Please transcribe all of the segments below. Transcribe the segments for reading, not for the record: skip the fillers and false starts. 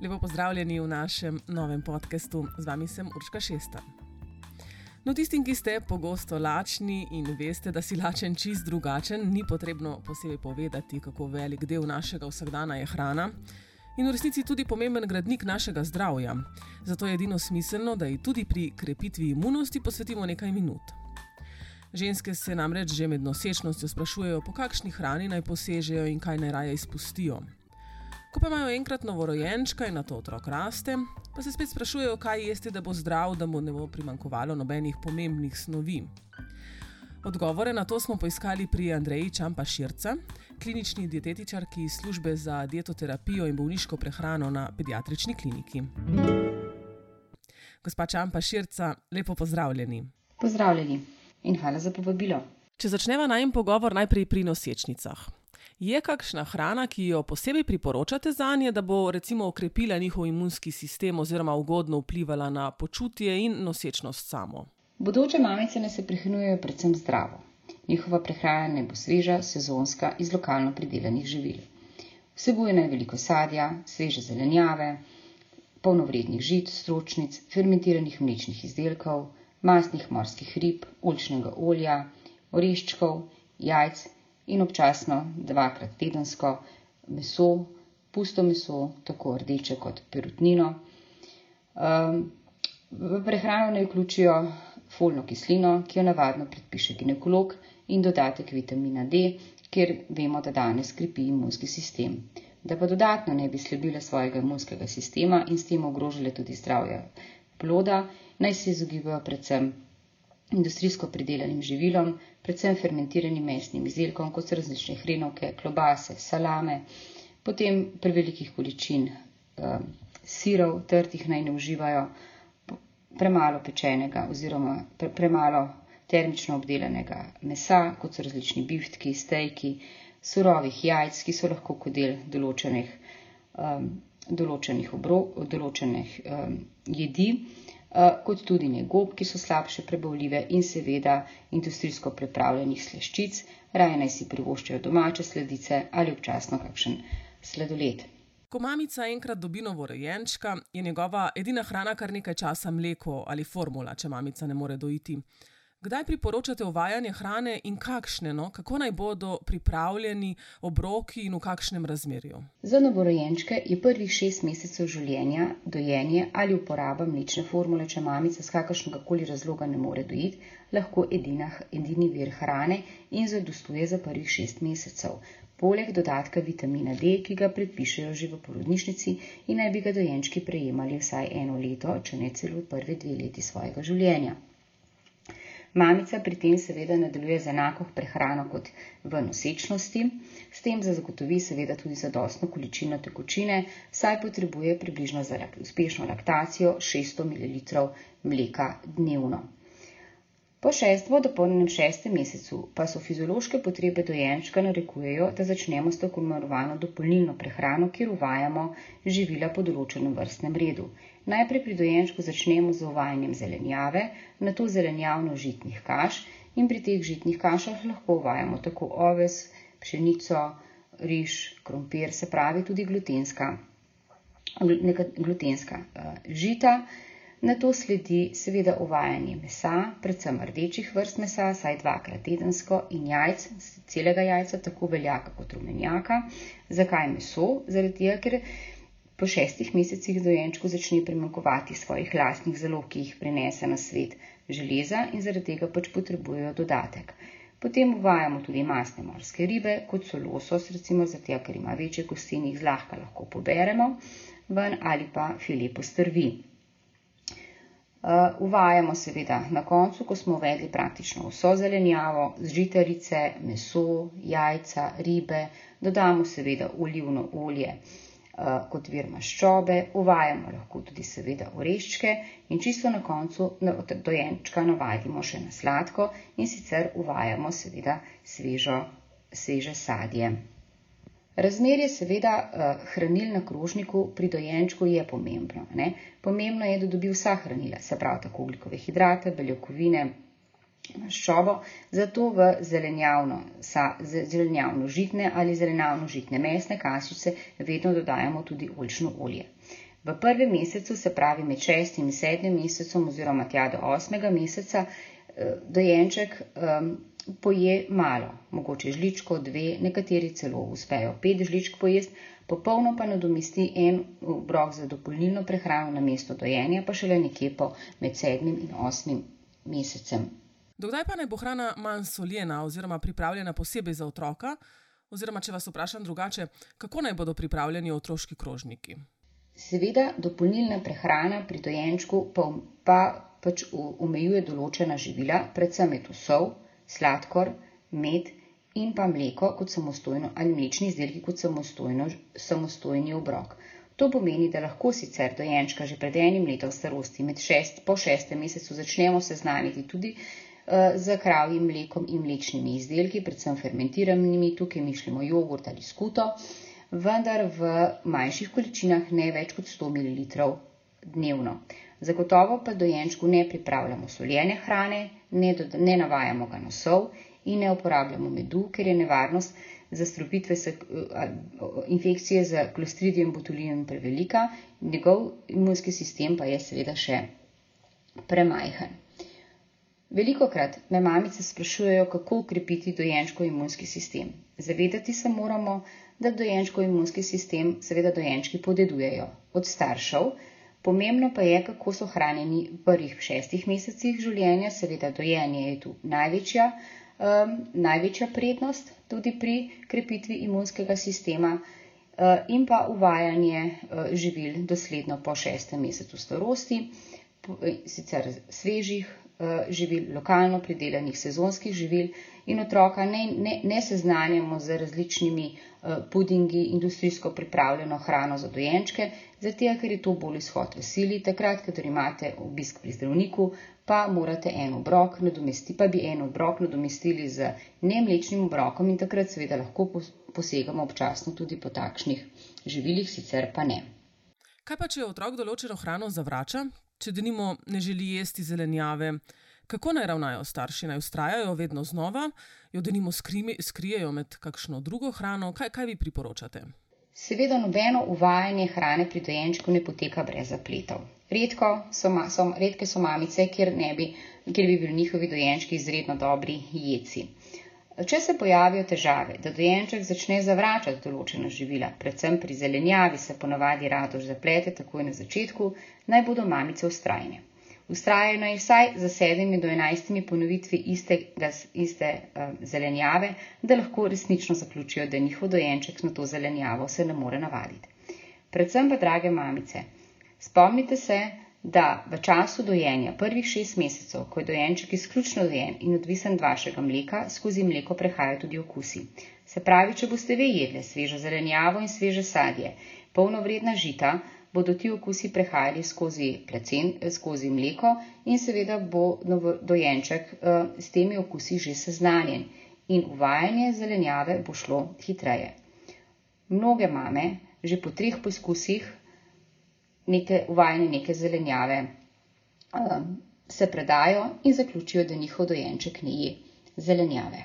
Lepo pozdravljeni v našem novem podcastu. Z vami sem Urška Šestan. No, tistim, ki ste pogosto lačni in veste, da si lačen čist drugačen, ni potrebno posebej povedati, kako velik del našega vsakdana je hrana in v resnici tudi pomemben gradnik našega zdravja. Zato je edino smiselno, da ji tudi pri krepitvi imunosti posvetimo nekaj minut. Ženske se namreč že med nosečnostjo sprašujejo, po kakšni hrani naj posežejo in kaj naj raje izpustijo. Ko pa imajo enkrat novorojenčka in nato otrok raste, pa se spet sprašujejo, kaj jesti, da bo zdrav, da mu ne bo primanjkovalo nobenih pomembnih snovi. Odgovore na to smo poiskali pri Andreji Čampa Širca, klinični dietetičarki iz službe za dietoterapijo in bolniško prehrano na pediatrični kliniki. Gospa Čampa Širca, lepo pozdravljeni. Pozdravljeni in hvala za povabilo. Če začneva najin pogovor najprej pri nosečnicah. Je kakšna hrana, ki jo posebej priporočate zanje, da bo recimo okrepila njihov imunski sistem oziroma ugodno vplivala na počutje in nosečnost samo? Bodoče mamice naj se prehranjujejo predvsem zdravo. Njihova prehrana naj bo sveža, sezonska, iz lokalno pridelanih živil. Vsebuje naj veliko sadja, sveže zelenjave, polnovrednih žit, stročnic, fermentiranih mlečnih izdelkov, mastnih morskih rib, oljčnega olja, oreščkov, jajc in občasno 2-krat tedensko meso, pusto meso, tako rdeče kot perutnino. V prehrano naj vključijo folno kislino, ki jo navadno predpiše ginekolog, in dodatek vitamina D, kjer vemo, da danes krepi imunski sistem. Da pa dodatno ne bi slabile svojega imunskega sistema in s tem ogrožile tudi zdravje ploda, naj se izogibajo predvsem industrijsko pridelanim živilom, predvsem fermentiranim mesnim izdelkom, kot so različne hrenovke, klobase, salame, potem prevelikih količin sirov, trtih naj ne uživajo, premalo pečenega oziroma premalo termično obdelanega mesa, kot so različni biftki, stejki, surovih jajc, ki so lahko kot del določenih jedi, kot tudi ne gob, ki so slabše prebavljive, in seveda industrijsko pripravljenih slaščic, raje naj si privoščijo domače sladice ali občasno kakšen sladoled. Ko mamica enkrat dobi novorojenčka, je njegova edina hrana kar nekaj časa mleko ali formula, če mamica ne more dojiti. Kdaj priporočate uvajanje hrane in kakšne, kako naj bodo pripravljeni obroki in v kakšnem razmerju? Za novorojenčke je prvih 6 mesecev življenja dojenje ali uporaba mlečne formule, če mamica z kakršnegakoli razloga ne more dojiti, lahko edini vir hrane in zadostuje za prvih 6 mesecev. Poleg dodatka vitamina D, ki ga predpišejo že v porodnišnici in naj bi ga dojenčki prejemali vsaj 1 leto, če ne celo prve 2 leti svojega življenja. Mamica pri tem seveda nadaljuje z enako prehrano kot v nosečnosti, s tem zagotovi seveda tudi zadostno količino tekočine, saj potrebuje približno za uspešno laktacijo 600 ml mleka dnevno. Po dopolnjenem 6. mesecu pa so fiziološke potrebe dojenčka narekujejo, da začnemo s tako imenovano dopolnilno prehrano, kjer uvajamo živila po določenem vrstnem redu. Najprej pri dojenčku začnemo z uvajanjem zelenjave, nato zelenjavno-žitnih kaš in pri teh žitnih kašah lahko uvajamo tako oves, pšenico, riž, krompir, se pravi tudi glutenska žita. Nato sledi seveda uvajanje mesa, predvsem rdečih vrst mesa, saj 2-krat tedensko, in jajc, celega jajca, tako beljaka kot rumenjaka. Zakaj meso? Zaradi tega, ker po 6 mesecih dojenčku začne primanjkovati svojih lastnih zalog, ki jih prinese na svet železa, in zaradi tega potrebujejo dodatek. Potem uvajamo tudi mastne morske ribe, kot so losos, recimo zaradi tega, ker ima večje kosti in jih zlahka lahko poberemo ven, ali pa file postrvi. Uvajamo seveda na koncu, ko smo uvedli praktično vso zelenjavo, žitarice, meso, jajca, ribe, dodamo seveda olivno olje kot vir maščobe, uvajamo lahko tudi seveda oreščke in čisto na koncu dojenčka navadimo še na sladko in sicer uvajamo seveda sveže sadje. Razmerje seveda hranil na krožniku pri dojenčku je pomembno. Pomembno je, da dobi vsa hranila, se pravi tako ogljikove hidrate, beljakovine, maščobo, zato v zelenjavno-žitne ali zelenjavno-žitne mesne kašice vedno dodajamo tudi oljčno olje. V prvem mesecu, se pravi med 6. in 7. mesecem oziroma tja do 8. meseca, dojenček poje malo, mogoče žličko, 2, nekateri celo uspejo 5 žličk pojesti, popolno pa nadomesti en obrok za dopolnilno prehrano namesto dojenja, pa šele nekje po med 7. in 8. mesecem. Dokdaj pa naj bo hrana manj soljena oziroma pripravljena posebej za otroka? Oziroma, če vas vprašam drugače, kako naj bodo pripravljeni otroški krožniki? Seveda, dopolnilna prehrana pri dojenčku pa pač omejuje določena živila, predvsem je to sol, sladkor, med in pa mleko kot samostojno ali mlečni izdelki kot samostojni obrok. To pomeni, da lahko sicer dojenčka že pred 1 letom starosti po 6. mesecu začnemo seznaniti tudi z kravjim mlekom in mlečnimi izdelki, predvsem fermentiranimi, tukaj mislimo jogurt ali skuto, vendar v manjših količinah ne več kot 100 ml dnevno. Zagotovo pa dojenčku ne pripravljamo soljene hrane, ne navajamo ga na sol in ne uporabljamo medu, ker je nevarnost zastrupitve infekcije z Clostridium botulinum prevelika, njegov imunski sistem pa je seveda še premajhen. Velikokrat me mamice sprašujejo, kako ukrepiti dojenčkov imunski sistem. Zavedati se moramo, da dojenčkov imunski sistem seveda dojenčki podedujejo od staršev. Pomembno pa je, kako so hranjeni v prvih 6 mesecih življenja, seveda dojenje je tu največja prednost tudi pri krepitvi imunskega sistema in pa uvajanje živil dosledno po 6. mesecu starosti, sicer svežih živil, lokalno pridelanih sezonskih živil in otroka ne seznanjamo z različnimi pudingi, industrijsko pripravljeno hrano za dojenčke, zato ker je to bolj izhod v sili. Takrat, kadar imate obisk pri zdravniku, pa morate en obrok nadomestili z nemlečnim obrokom in takrat seveda lahko posegamo občasno tudi po takšnih živilih, sicer pa ne. Kaj pa, če otrok določeno hrano zavrača? Če denimo ne želi jesti zelenjave, kako naj ravnajo starši? Naj vztrajajo vedno znova, jo denimo skrijejo med kakšno drugo hrano? Kaj vi priporočate? Seveda nobeno uvajanje hrane pri dojenčku ne poteka brez zapletov. Redke so mamice, kjer bi bili njihovi dojenčki izredno dobri jedci. Če se pojavijo težave, da dojenček začne zavračati določena živila, predvsem pri zelenjavi se ponavadi radož zaplete takoj na začetku, naj bodo mamice vztrajne. Vztrajajo naj vsaj za 7 do 11 ponovitvi iste zelenjave, da lahko resnično zaključijo, da njihov dojenček na to zelenjavo se ne more navaditi. Predvsem pa, drage mamice, spomnite se, da v času dojenja prvih 6 mesecev, ko je dojenček izključno dojen in odvisen od vašega mleka, skozi mleko prehajajo tudi okusi. Se pravi, če boste vi jedli svežo zelenjavo in sveže sadje, polnovredna žita, bodo ti okusi prehajali skozi mleko in seveda bo dojenček s temi okusi že seznanjen in uvajanje zelenjave bo šlo hitreje. Mnoge mame že po 3 poskusih uvajanje neke zelenjave se predajo in zaključijo, da njihov dojenček ne je zelenjave.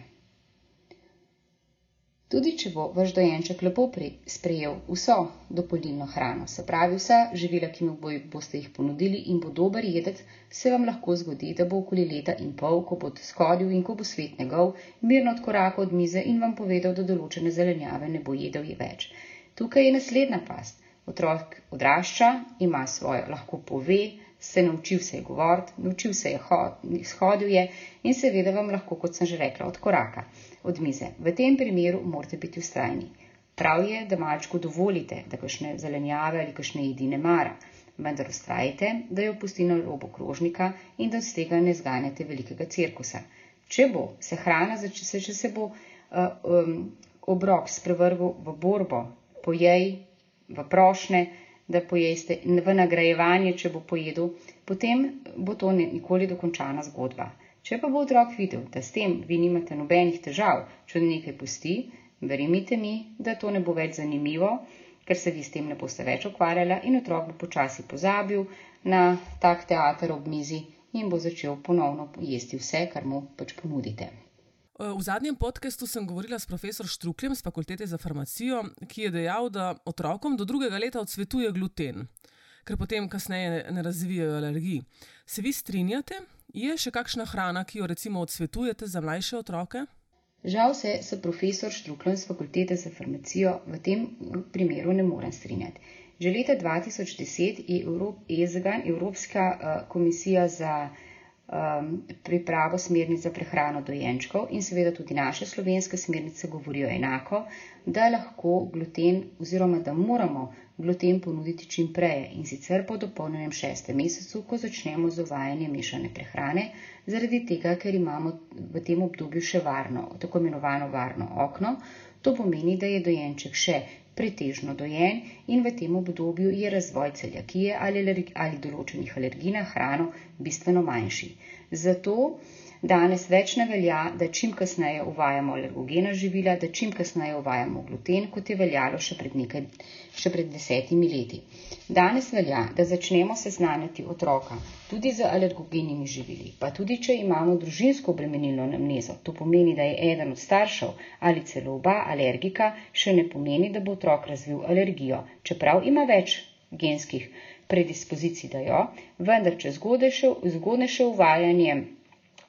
Tudi če bo vaš dojenček lepo sprejel vso dopolnilno hrano, se pravi vsa živila, ki mu boste jih ponudili in bo dober jedec, se vam lahko zgodi, da bo okoli leta in pol, ko bo skodil in ko bo svet njegov, mirno odkorakal od mize in vam povedal, da določene zelenjave ne bo jedel več. Tukaj je naslednja past. Otrok odrašča, ima svojo, lahko pove, naučil se je govoriti, naučil se je shodil je in seveda vam lahko, kot sem že rekla, odkoraka od mize. V tem primeru morate biti vztrajni. Prav je, da malčku dovolite, da kakšne zelenjave ali kakšne jedi ne mara, vendar vztrajite, da jo pusti na robu krožnika in da z tega ne zganjate velikega cirkusa. Če se bo obrok sprevrgal v borbo, pojej, v prošnje, da pojeste, v nagrajevanje, če bo pojedel, potem bo to nikoli dokončana zgodba. Če pa bo otrok videl, da s tem vi nimate nobenih težav, če nekaj pusti, verjemite mi, da to ne bo več zanimivo, ker se vi s tem ne boste več ukvarjala in otrok bo počasi pozabil na tak teater ob mizi in bo začel ponovno jesti vse, kar mu pač ponudite. V zadnjem podcastu sem govorila s profesor Štrukljem z Fakultete za farmacijo, ki je dejal, da otrokom do 2. leta odsvetuje gluten. ker potem kasneje ne razvijajo alergij. Se vi strinjate? Je še kakšna hrana, ki jo recimo odsvetujete za mlajše otroke? Žal se profesor Štrukljan z Fakultete za farmacijo v tem primeru ne morem strinjati. Že leta 2010 je EZGAN, Evropska komisija za pripravo smernic za prehrano dojenčkov in seveda tudi naše slovenske smernice govorijo enako, da lahko gluten oziroma da moramo gluten ponuditi čim prej in sicer po dopolnjenem 6. mesecu, ko začnemo z uvajanjem mešane prehrane, zaradi tega, ker imamo v tem obdobju še tako imenovano varno okno. To pomeni, da je dojenček še pretežno dojen in v tem obdobju je razvoj celiakije ali določenih alergij na hrano bistveno manjši. Zato danes več ne velja, da čim kasneje uvajamo alergogena živila, da čim kasneje uvajamo gluten, kot je veljalo še pred 10 leti. Danes velja, da začnemo seznanjati otroka tudi z alergogenimi živili, pa tudi če imamo družinsko obremenilno anamnezo. To pomeni, da je eden od staršev ali celo oba alergika, še ne pomeni, da bo otrok razvil alergijo, čeprav ima več genskih predispozicij, da jo, vendar če zgodnejše uvajanje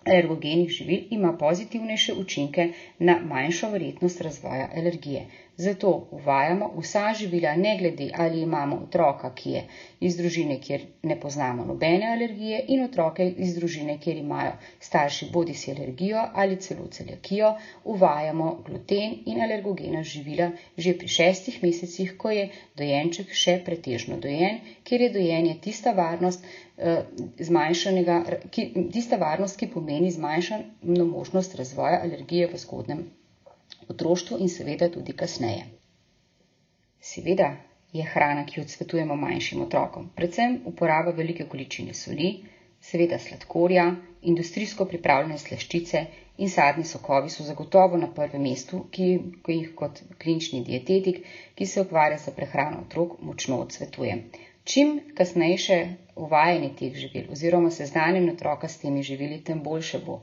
alergogenih živil ima pozitivnejše učinke na manjšo verjetnost razvoja alergije. Zato uvajamo vsa živila, ne glede ali imamo otroka, ki je iz družine, kjer ne poznamo nobene alergije, in otroke iz družine, kjer imajo starši bodisi alergijo ali celo celiakijo, uvajamo gluten in alergogena živila že pri 6 mesecih, ko je dojenček še pretežno dojen, kjer je dojenje tista varnost, ki pomeni zmanjšano možnost razvoja alergije v zgodnjem otroštvu in seveda tudi kasneje. Seveda je hrana, ki jo odsvetujemo manjšim otrokom, predvsem uporaba velike količine soli, seveda sladkorja, industrijsko pripravljene slaščice in sadni sokovi so zagotovo na prvem mestu, ki jih kot klinični dietetik, ki se ukvarja s prehrano otrok, močno odsvetujem. Čim kasnejše uvajanje teh živil oziroma seznanjanje otroka s temi živili, tem boljše bo.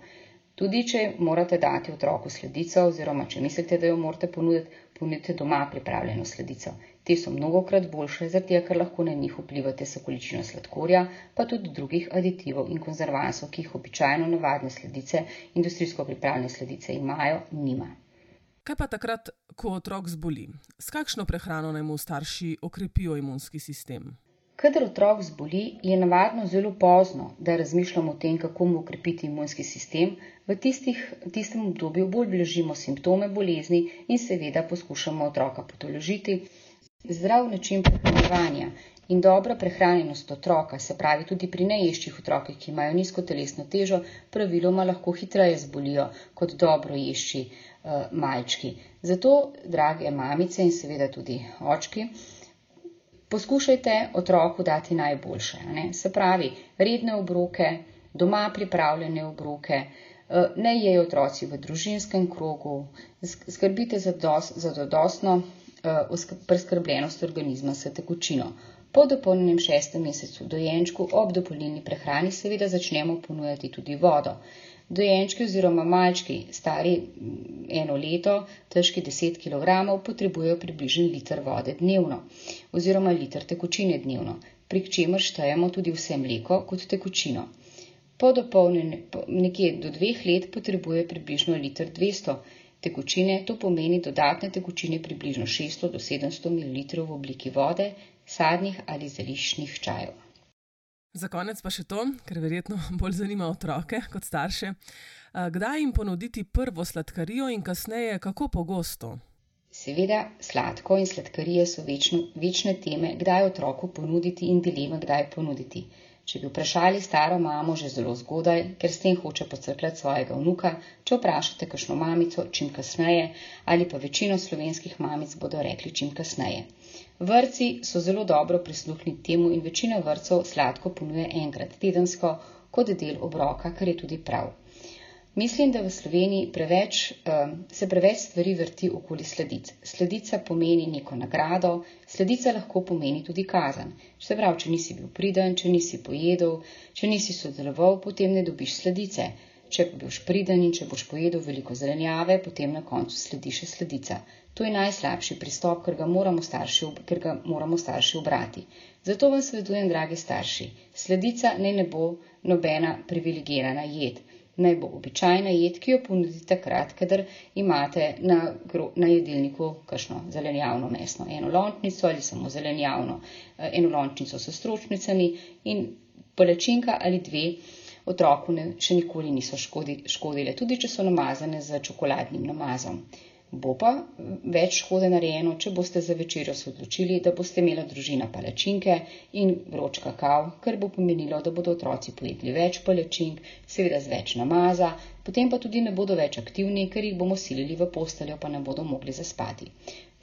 Tudi če morate dati otroku sladico oziroma če mislite, da jo morate ponudite doma pripravljeno sladico. Te so mnogokrat boljše, zato ker lahko na njih vplivate s količino sladkorja, pa tudi drugih aditivov in konzervansov, ki jih običajno navadne sladice, industrijsko pripravljene sladice nima. Kaj pa takrat, ko otrok zboli? S kakšno prehrano naj mu starši okrepijo imunski sistem? Kadar otrok zboli, je navadno zelo pozno, da razmišljamo o tem, kako mu okrepiti imunski sistem. V tistem obdobju bolj blažimo simptome bolezni in seveda poskušamo otroka potolažiti. Zdrav način prehranjevanja in dobra prehranjenost otroka, se pravi tudi pri neješčih otrokih, ki imajo nizko telesno težo, praviloma lahko hitreje zbolijo kot dobro ješči malčki. Zato, drage mamice in seveda tudi očki, poskušajte otroku dati najboljše. Se pravi, redne obroke, doma pripravljene obroke, ne jejo otroci v družinskem krogu, skrbite za zadostno preskrbljenost organizma s tekočino. Po dopolnjenem 6. mesecu dojenčku ob dopolnilni prehrani seveda začnemo ponujati tudi vodo. Dojenčki oziroma malčki, stari 1 leto, težki 10 kg, potrebujejo približno liter vode dnevno oziroma liter tekočine dnevno, pri čemer štejemo tudi vse mleko kot tekočino. Nekje do 2 let potrebuje približno liter 200 tekočine, to pomeni dodatne tekočine približno 600 do 700 ml v obliki vode, sadnih ali zeliščnih čajev. Za konec pa še to, ker verjetno bolj zanima otroke kot starše. Kdaj jim ponuditi prvo sladkarijo in kasneje kako pogosto? Seveda, sladko in sladkarije so večne teme, kdaj otroku ponuditi in dileme, kdaj ponuditi. Če bi vprašali staro mamo že zelo zgodaj, ker s tem hoče pocrkljati svojega vnuka, če vprašate kakšno mamico, čim kasneje, ali pa večino slovenskih mamic bodo rekli čim kasneje. Vrtci so zelo dobro prisluhnili temu in večina vrtcev sladko ponuja enkrat tedensko kot del obroka, kar je tudi prav. Mislim, da v Sloveniji se preveč stvari vrti okoli sladic. Sladica pomeni neko nagrado, sladica lahko pomeni tudi kazen. Se pravi, če nisi bil priden, če nisi pojedel, če nisi sodeloval, potem ne dobiš sladice. če boš priden in če boš pojedel veliko zelenjave, potem na koncu sledi še sladica. To je najslabši pristop, ker ga moramo starši ubrati. Zato vam svetujem, dragi starši, sladica naj ne bo nobena privilegirana jed. Naj bo običajna jed, ki jo ponudite takrat, kadar imate na jedilniku kakšno zelenjavno mesno enolončnico ali samo zelenjavno enolončnico s stročnicami in palačinka ali dve otroku še nikoli niso škodile, tudi če so namazane z čokoladnim namazom. Bo pa več škode narejeno, če boste za večerjo se odločili, da boste imela družina palačinke in vroč kakav, kar bo pomenilo, da bodo otroci pojedli več palačink, seveda z več namaza, potem pa tudi ne bodo več aktivni, ker jih bomo silili v posteljo, pa ne bodo mogli zaspati.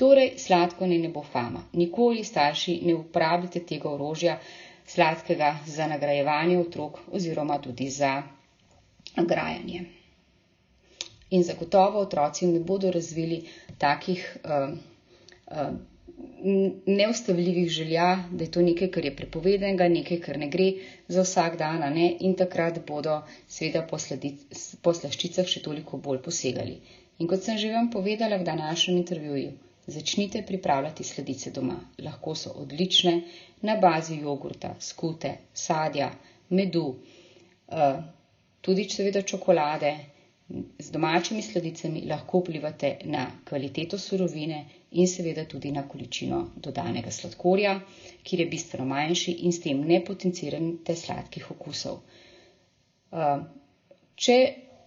Torej, sladko ne bo fama. Nikoli, starši, ne uporabljate tega orožja sladkega za nagrajevanje otrok oziroma tudi za grajanje. In zagotovo otroci ne bodo razvili takih neustavljivih želja, da je to nekaj, kar je prepovedanega, nekaj, kar ne gre za vsak dan, in takrat bodo seveda po slaščicah še toliko bolj posegali. In kot sem že vam povedala v današnjem intervjuju, začnite pripravljati sladice doma. Lahko so odlične na bazi jogurta, skute, sadja, medu, tudi seveda čokolade. Z domačimi sladicami lahko vplivate na kvaliteto surovine in seveda tudi na količino dodanega sladkorja, kjer je bistveno manjši in s tem ne potencirate sladkih okusov. Če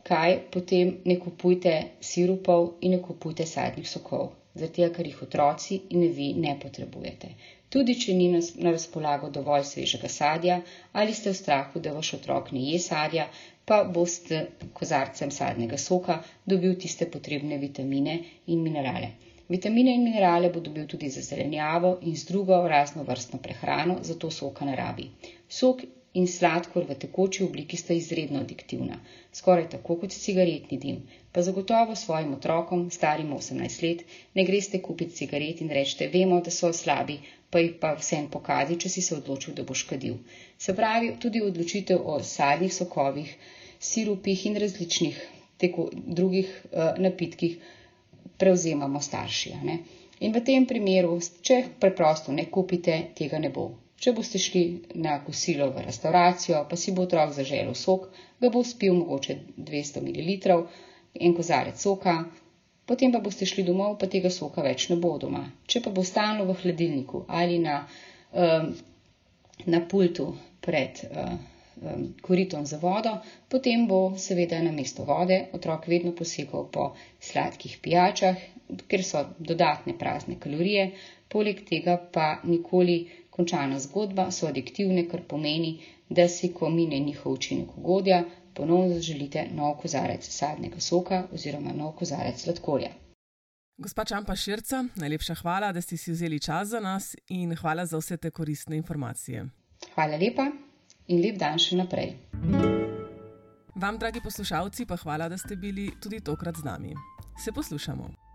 kaj, potem ne kupujte sirupov in ne kupujte sadnih sokov, zato ker jih otroci in vi ne potrebujete. Tudi če ni na razpolago dovolj svežega sadja ali ste v strahu, da vaš otrok ne je sadja, pa boste kozarcem sadnega soka dobil tiste potrebne vitamine in minerale. Vitamine in minerale bo dobil tudi za zelenjavo in z drugo raznovrstno prehrano, zato soka ne rabi. Sok in sladkor v tekoči obliki sta izredno adiktivna, skoraj tako kot cigaretni dim. Pa zagotovo svojim otrokom, starim 18 let, ne greste kupiti cigaret in rečete, vemo, da so slabi, pa jih pa vsem pokadi, če si se odločil, da boš kadil. Se pravi, tudi odločitev o sadnih sokovih, sirupih in različnih drugih napitkih prevzemamo starši. In v tem primeru, če preprosto ne kupite, tega ne bo. Če boste šli na kosilo v restauracijo, pa si bo otrok zaželel sok, ga bo spil mogoče 200 ml, en kozarec soka, potem pa boste šli domov, pa tega soka več ne bo doma. Če pa bo stalno v hladilniku ali na pultu pred koritom za vodo, potem bo seveda namesto vode otrok vedno posegal po sladkih pijačah, ker so dodatne prazne kalorije, poleg tega pa nikoli končana zgodba, so adiktivne, kar pomeni, da si, ko mine njihov učinek ugodja, ponovno zaželite nov kozarec sadnega soka oziroma nov kozarec sladkorja. Gospa Čampa Širca, najlepša hvala, da ste si vzeli čas za nas in hvala za vse te koristne informacije. Hvala lepa in lep dan še naprej. Vam, dragi poslušalci, pa hvala, da ste bili tudi tokrat z nami. Se poslušamo.